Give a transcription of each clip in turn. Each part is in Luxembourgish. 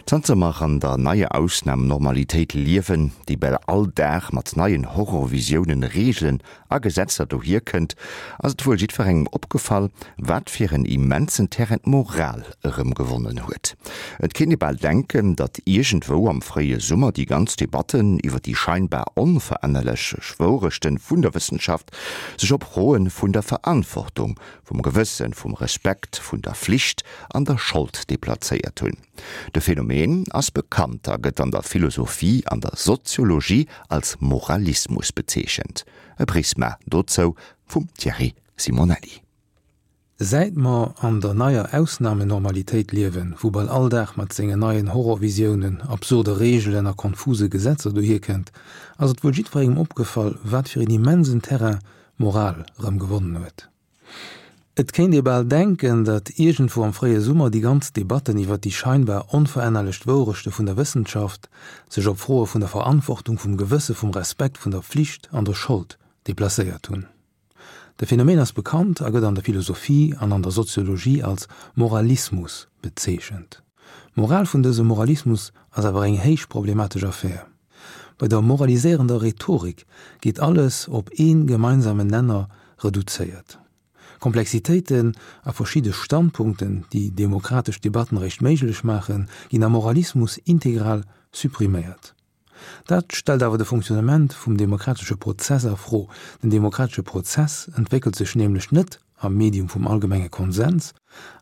Zanter mer an der neier Ausnam-Normalitéit liewen, déi bal all Dag mat neien Horrorvisiounen, Reegelen a Gesetzer dohier kënnt, ass et wuel jiddwerengem opgefall, wat fir en immensen Terrain d'Moral erëm gewonnen huet. Et kéint ee bal denken, datt iergendwou am fréie Summer déi ganz Debatten iwwer déi scheinbar onverännerlech Wourechten vun der Wëssenschaft sech op Froe vun der Verantwortung, vum Gewëssen, vum Respekt, vun der Flicht an der Schold deplazéiert hunn. De Phänomen ass bekannt a gëtt an der Philosophie an der Soziologie als Moralismus bezeechent. E Prisma dozou vum Thierry Simonelli. Säit mer an der neier Ausnamenormalitéit liewen, wou bal all Dag mat sengen neien Horrorvisiounen, absurde Reegelen a konfuse Gesetzer dohierkënnt, ass et wuel jiddwerengem opgefall, wat fir een immensen Terrain d'Moral erëm gewonnen huet. Et kéint ee bal denken, datt iergendwou am fréie Summer déi ganz Debatten iwwer déi scheinbar onverännerlecht Wourechte vun der Wëssenschaft sech op Froe vun der Verantwortung, vum Gewësse, vum Respekt, vun der Flicht an der Schold deplacéiert hunn. De Phänomen ass bekannt a gëtt an der Philosophie an an der Soziologie als Moralismus bezeechent. D'Moral vun dësem Moralismus ass awer eng héich problematesch Affär. Bei der moraliséierender Rhetorik geet alles op ee gemeinsamen Nenner reduzéiert. Komplexitéiten a verschidde Standpunkten, déi demokratesch Debatten eréischt méiglech maachen, ginn am Moralismus integral suppriméiert. Dat stellt awer de Fonctionnement vum demokratesche Prozess a Fro. Den demokratesche Prozess entwéckelt sech nämlech net am Medium vum allgemenge Konsens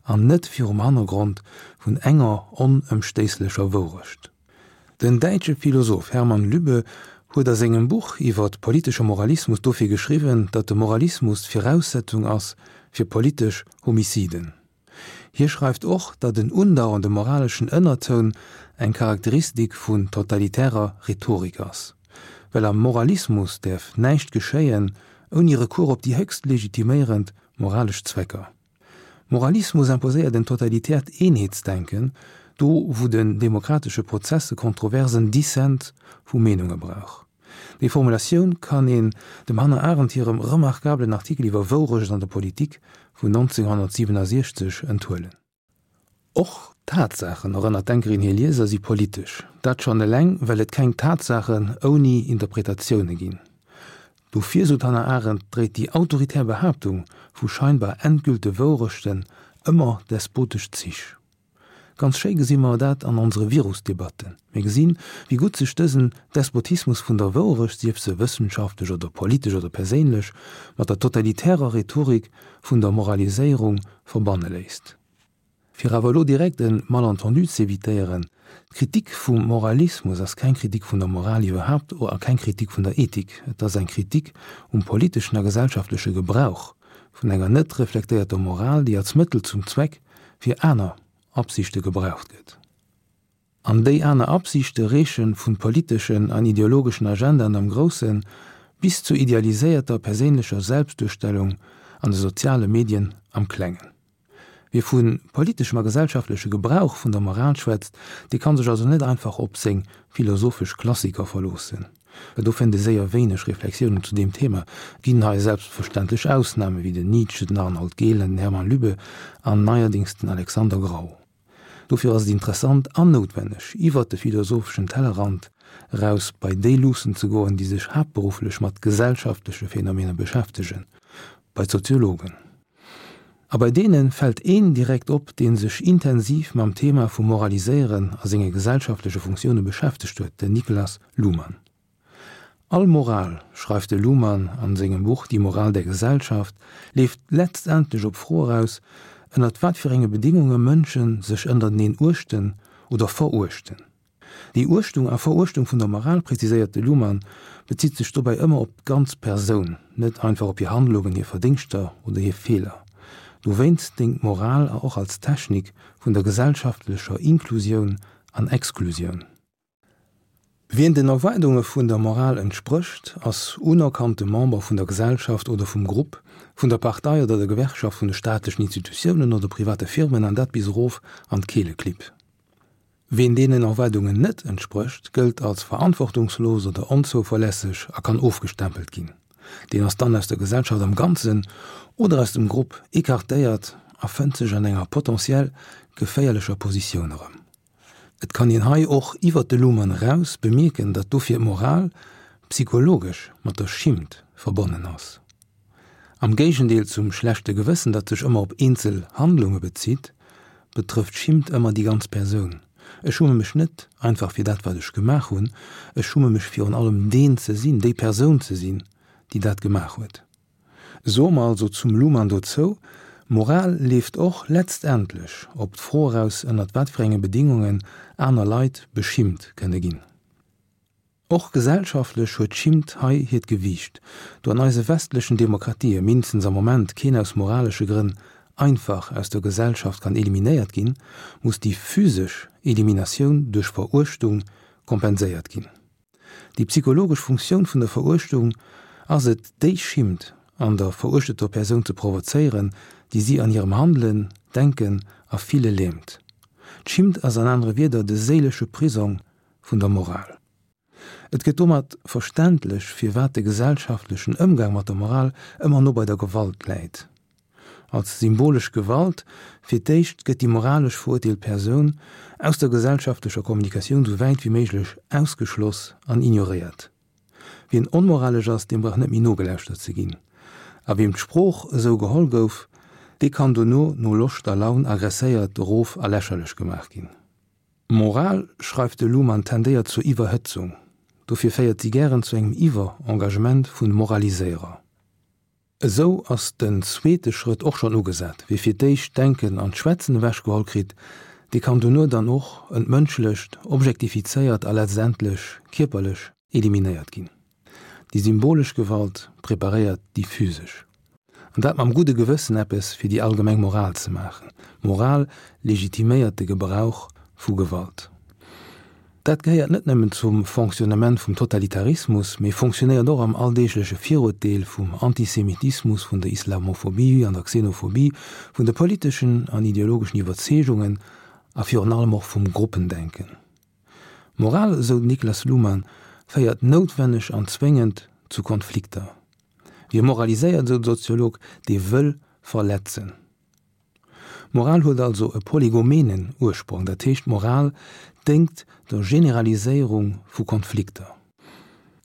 an net virum Hannergrond vun enger onëmstéisslecher Wourecht. Den däitsche Philosoph Hermann Lübbe huet a sengem Buch iwwer politesche Moralismus dofir geschriwwen, datt de Moralismus d'Viraussetzung ass fir politesch Homiciden. Hie schreift och, datt en undauernde moraleschen Ënnertoun eng Charakteristik vun totalitärer Rhetorik ass, well am Moralismus däerf näischt geschéien ouni Recours op déi héchst legitiméierend moralesch Zwecker. Moralismus imposéiert en totalitäert Eenheetsdenken, do wou den demokratesche Prozess e kontroversen Dissent vu Meenunge brauch. Déi Formulatioun kann een dem Hannah Arendt hirem remarkablen Artikel iwwer Wourecht an der Politik vun 1967 enthuelen. Och Tatsaachen, erënnert d'Denkerin hir Lieser, si politesch. Dat schonn eleng, well et keng Tatsaachen ouni Interpretatioune ginn. Dofir, sou d'Hannah Arendt, dréit déi autoritär Behaaptung vu scheinbar endgülte Wourechten ëmmer despotesch Zich. Ganz schéi gesi mer dat an onsere Virusdebatten. Mir gesinn, wéi gutt sech dësen Despotismus vun der Wourecht, sief se wëssenschaftlech oder politesch oder perséinlech, mat der totalitärer Rhetorik vun der Moraliséierung verbanne léisst. Fir awer elo direkt e Malentendu z'evitéieren, D'Kritik vum Moralismus ass keng Kritik vun der Moral iwwerhaapt a keng Kritik vun der Ethik. Et ass eng Kritik um politeschen a gesellschaftleche Gebrauch vun enger net reflektéierter Moral, déi als Mëttel zum Zweck fir aner Absichte gebraucht gëtt. An déi aner Absichte reeche vun politeschen an ideologeschen Agendaen am Groussen bis zu idealiséierter perséinlecher Selbstduerstellung an de soziale Medien am Klengen. Wie vu politeschem a gesellschaftleche Gebrauch vun der Moral schwätzt, dee kann sech also net einfach op seng philosophesch Klassiker verloossen, well do fënnt ee séier wéineg Reflexiounen zu deem Thema. Et ginn hei selbstverständlech Ausname wéi den Nietzsche, den Arnold Gehlen, den Hermann Lübbe an neierdings den Alexander Grau. Dofir ass et interessant an noutwenneg, iwwert de philosopheschen Tellerrand eraus bei déi luussen ze goen, déi sech haaptberufflech mat gesellschaftleche Phänomener beschäftegen, bei d'Soziologen. A bei deene fält een direkt op, dee sech intensiv mam Thema vum Moraliséieren a senge gesellschaftleche Funktioune beschäftegt huet, den Niklas Luhmann. All Moral, schreift de Luhmann an sengem Buch Die Moral der Gesellschaft, leeft letztendlech op d'Fro eraus, ënnert wat fir enge Bedingunge Mënsche sech ënnerteneen uechten oder veruechten. Déi Uechtung a Veruechtung vun der Moral, preziséiert de Luhmann, bezitt sech dobäi ëmmer op d'ganz Persoun, net einfach op hir Handlungen, hir Verdéngschter oder hir Feeler. Dowéinst déngt d'Moral och als Technik vun der gesellschaftlecher Inklusioun an Exklusioun. Wien den Erwaardunge vun der Moral entsprécht, ass unerkannte Member vun der Gesellschaft oder vum Grupp, vun der Partei oder der Gewerkschaft, vun de staatlechen Institutiounen oder private Firmen, an dat bis erof an d'Keeleklipp. Wien deenen Erwaardungen net entsprécht, gëllt als verantwortungslos oder onzouverlässeg a kann ofgestempelt ginn. Deen ass dann aus der Gesellschaft am Ganzen oder aus dem Grupp ecartéiert a fënnt sech an enger potentiell geféierlecher Positioun erëm. Et kann een hei och iwwert de Luhmann eraus bemierken, datt dofir d'Moral psychologesch mat der Schimmt verbonnen ass. Am Géigendeel zum schlechte Gewëssen, dat sech ëmmer op eenzel Handlunge bezitt, betrëfft Schimmt ëmmer déi ganz Persoun. Ech schumme mech net einfach fir dat, wat ech gemaach hunn, ech schumme mech virun allem deen ze sinn, déi Persoun ze sinn, déi dat gemaach huet. Soe mer also zum Luhmann dozou, Moral leeft och letztendlech op d'Fro eraus, ënnert wat fir enge Bedingungen aner Leit beschimmt kënne ginn. Och gesellschaftlech huet d'Schimmt hei hiert Gewiicht, do an eise westlechen Demokratië mindestens am Moment keen aus moralesche Grënn einfach aus der Gesellschaft kann eliminéiert ginn, muss déi physesch Eliminatioun duerch Veruechtung kompenséiert ginn. Déi psychologesch Funktioun vun der Veruechtung ass et, déi Schimmt an der veruechteter Persoun ze provozéieren, déi si an hirem Handelen, Denken a Fille lähmt. D'Schimmt ass an anere Wierder de séilesche Prisong vun der Moral. Et gëtt domat verständlech, firwat de gesellschaftlechen Ëmgang mat der Moral ëmmer no bei der Gewalt läit. Als symbolesch Gewalt, fir d'éischt gëtt déi moralesch verurteelt Persoun aus der gesellschaftlecher Kommunikatioun sou wäit wéi méiglech ausgeschloss an ignoréiert. Wien onmoralesch ass, deem brauch net méi nogelauschtert ze ginn. A wiem d'Sprooch esou geholl gouf, dee kann dono no Loscht a Laun agresséiert, erof a lächerlech gemaach ginn. Moral, schreift de Luhmann, tendéiert zur Iwwerhëtzung. Dofir féiert si gären zu engem Iwwer-Engagement vun Moraliséierer. Esou ass den zweete Schrëtt och schonn ugesat, Wie fir d'éischt d'Denken an d'Schwätzen ewechgeholl kritt, dee kann dono dann och entmënschlecht, objektifizéiert a letztendlech kierperlech eliminéiert ginn. Déi symbolesch Gewalt preparéiert déi physesch. An dat mam gudde Gewëssen eppes fir déi allgemeng Moral ze maachen. Moral legitiméiert de Gebrauch vu Gewalt. Dat gehéiert net nëmmen zum Fonctionnement vum Totalitarismus, mee fonctionnéiert och am alldeegleche Viruerteel vum Antisemitismus, vun der Islamophobie an der Xenophobie, vun de politeschen an ideologeschen Iwwerzeegungen a virun allem och vum Gruppendenken. Moral, esou den Niklas Luhmann, féiert noutwenneg an zwéngend zu Konflikter. Wie moraliséiert, esou de Soziolog, dee wëll verletzen. Moral huet also e polygomenen Ursprong, dat heescht d'Moral déngt der Generaliséierung vu Konflikter.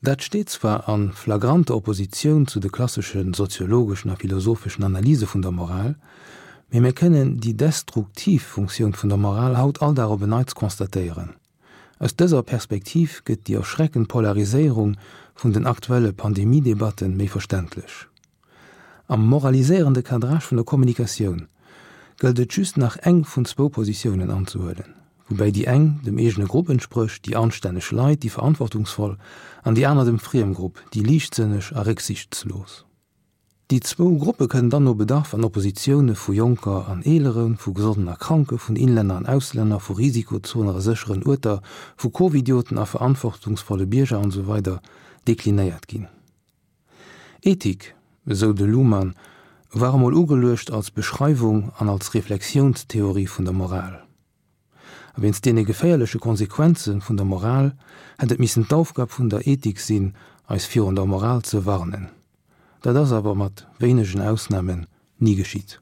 Dat steet zwar a flagranter Oppositioun zu de klassesche soziologeschen a philosopheschen Analyse vun der Moral, mee mir kënnen déi destruktiv Funktioun vun der Moral haut all Dag op en Neits constatéieren. Aus dëser Perspektiv gëtt déi erschreckend Polariséierung vun den aktuelle Pandemie-Debatte méi verständlech. Am moraliséierende Cadrage vun der Kommunikatioun gëllt et just nach eng vun zwou Positiounen anzehuelen, woubäi déi eng dem eegene Grupp entsprécht, déi anstänneg Leit, déi Verantwortungsvoll, an déi aner dem Friemgrupp, déi liichtsënneg a récksiichtslos. Déi zwou Gruppe kënnen dann no Bedarf an Oppositioune vu Jonker an Eeleren, vu Gesonden a Kranke, vun Inlänner an Auslänner, vu Risikozoner a sécheren Uerter, vu Covidioten a verantwortungsvolle Bierger an esou weider deklinéiert ginn. Ethik, esou de Luhmann, war emol ugeluecht als Beschreiwung an als Reflexiounstheorie vun der Moral. A wéinst deene geféierleche Konsequenze vun der Moral hätt et missen d'Aufgab vun der Ethik sinn, eis virun der Moral ze warnen. Dat ass awer mat wéinegen Ausnamen ni geschitt.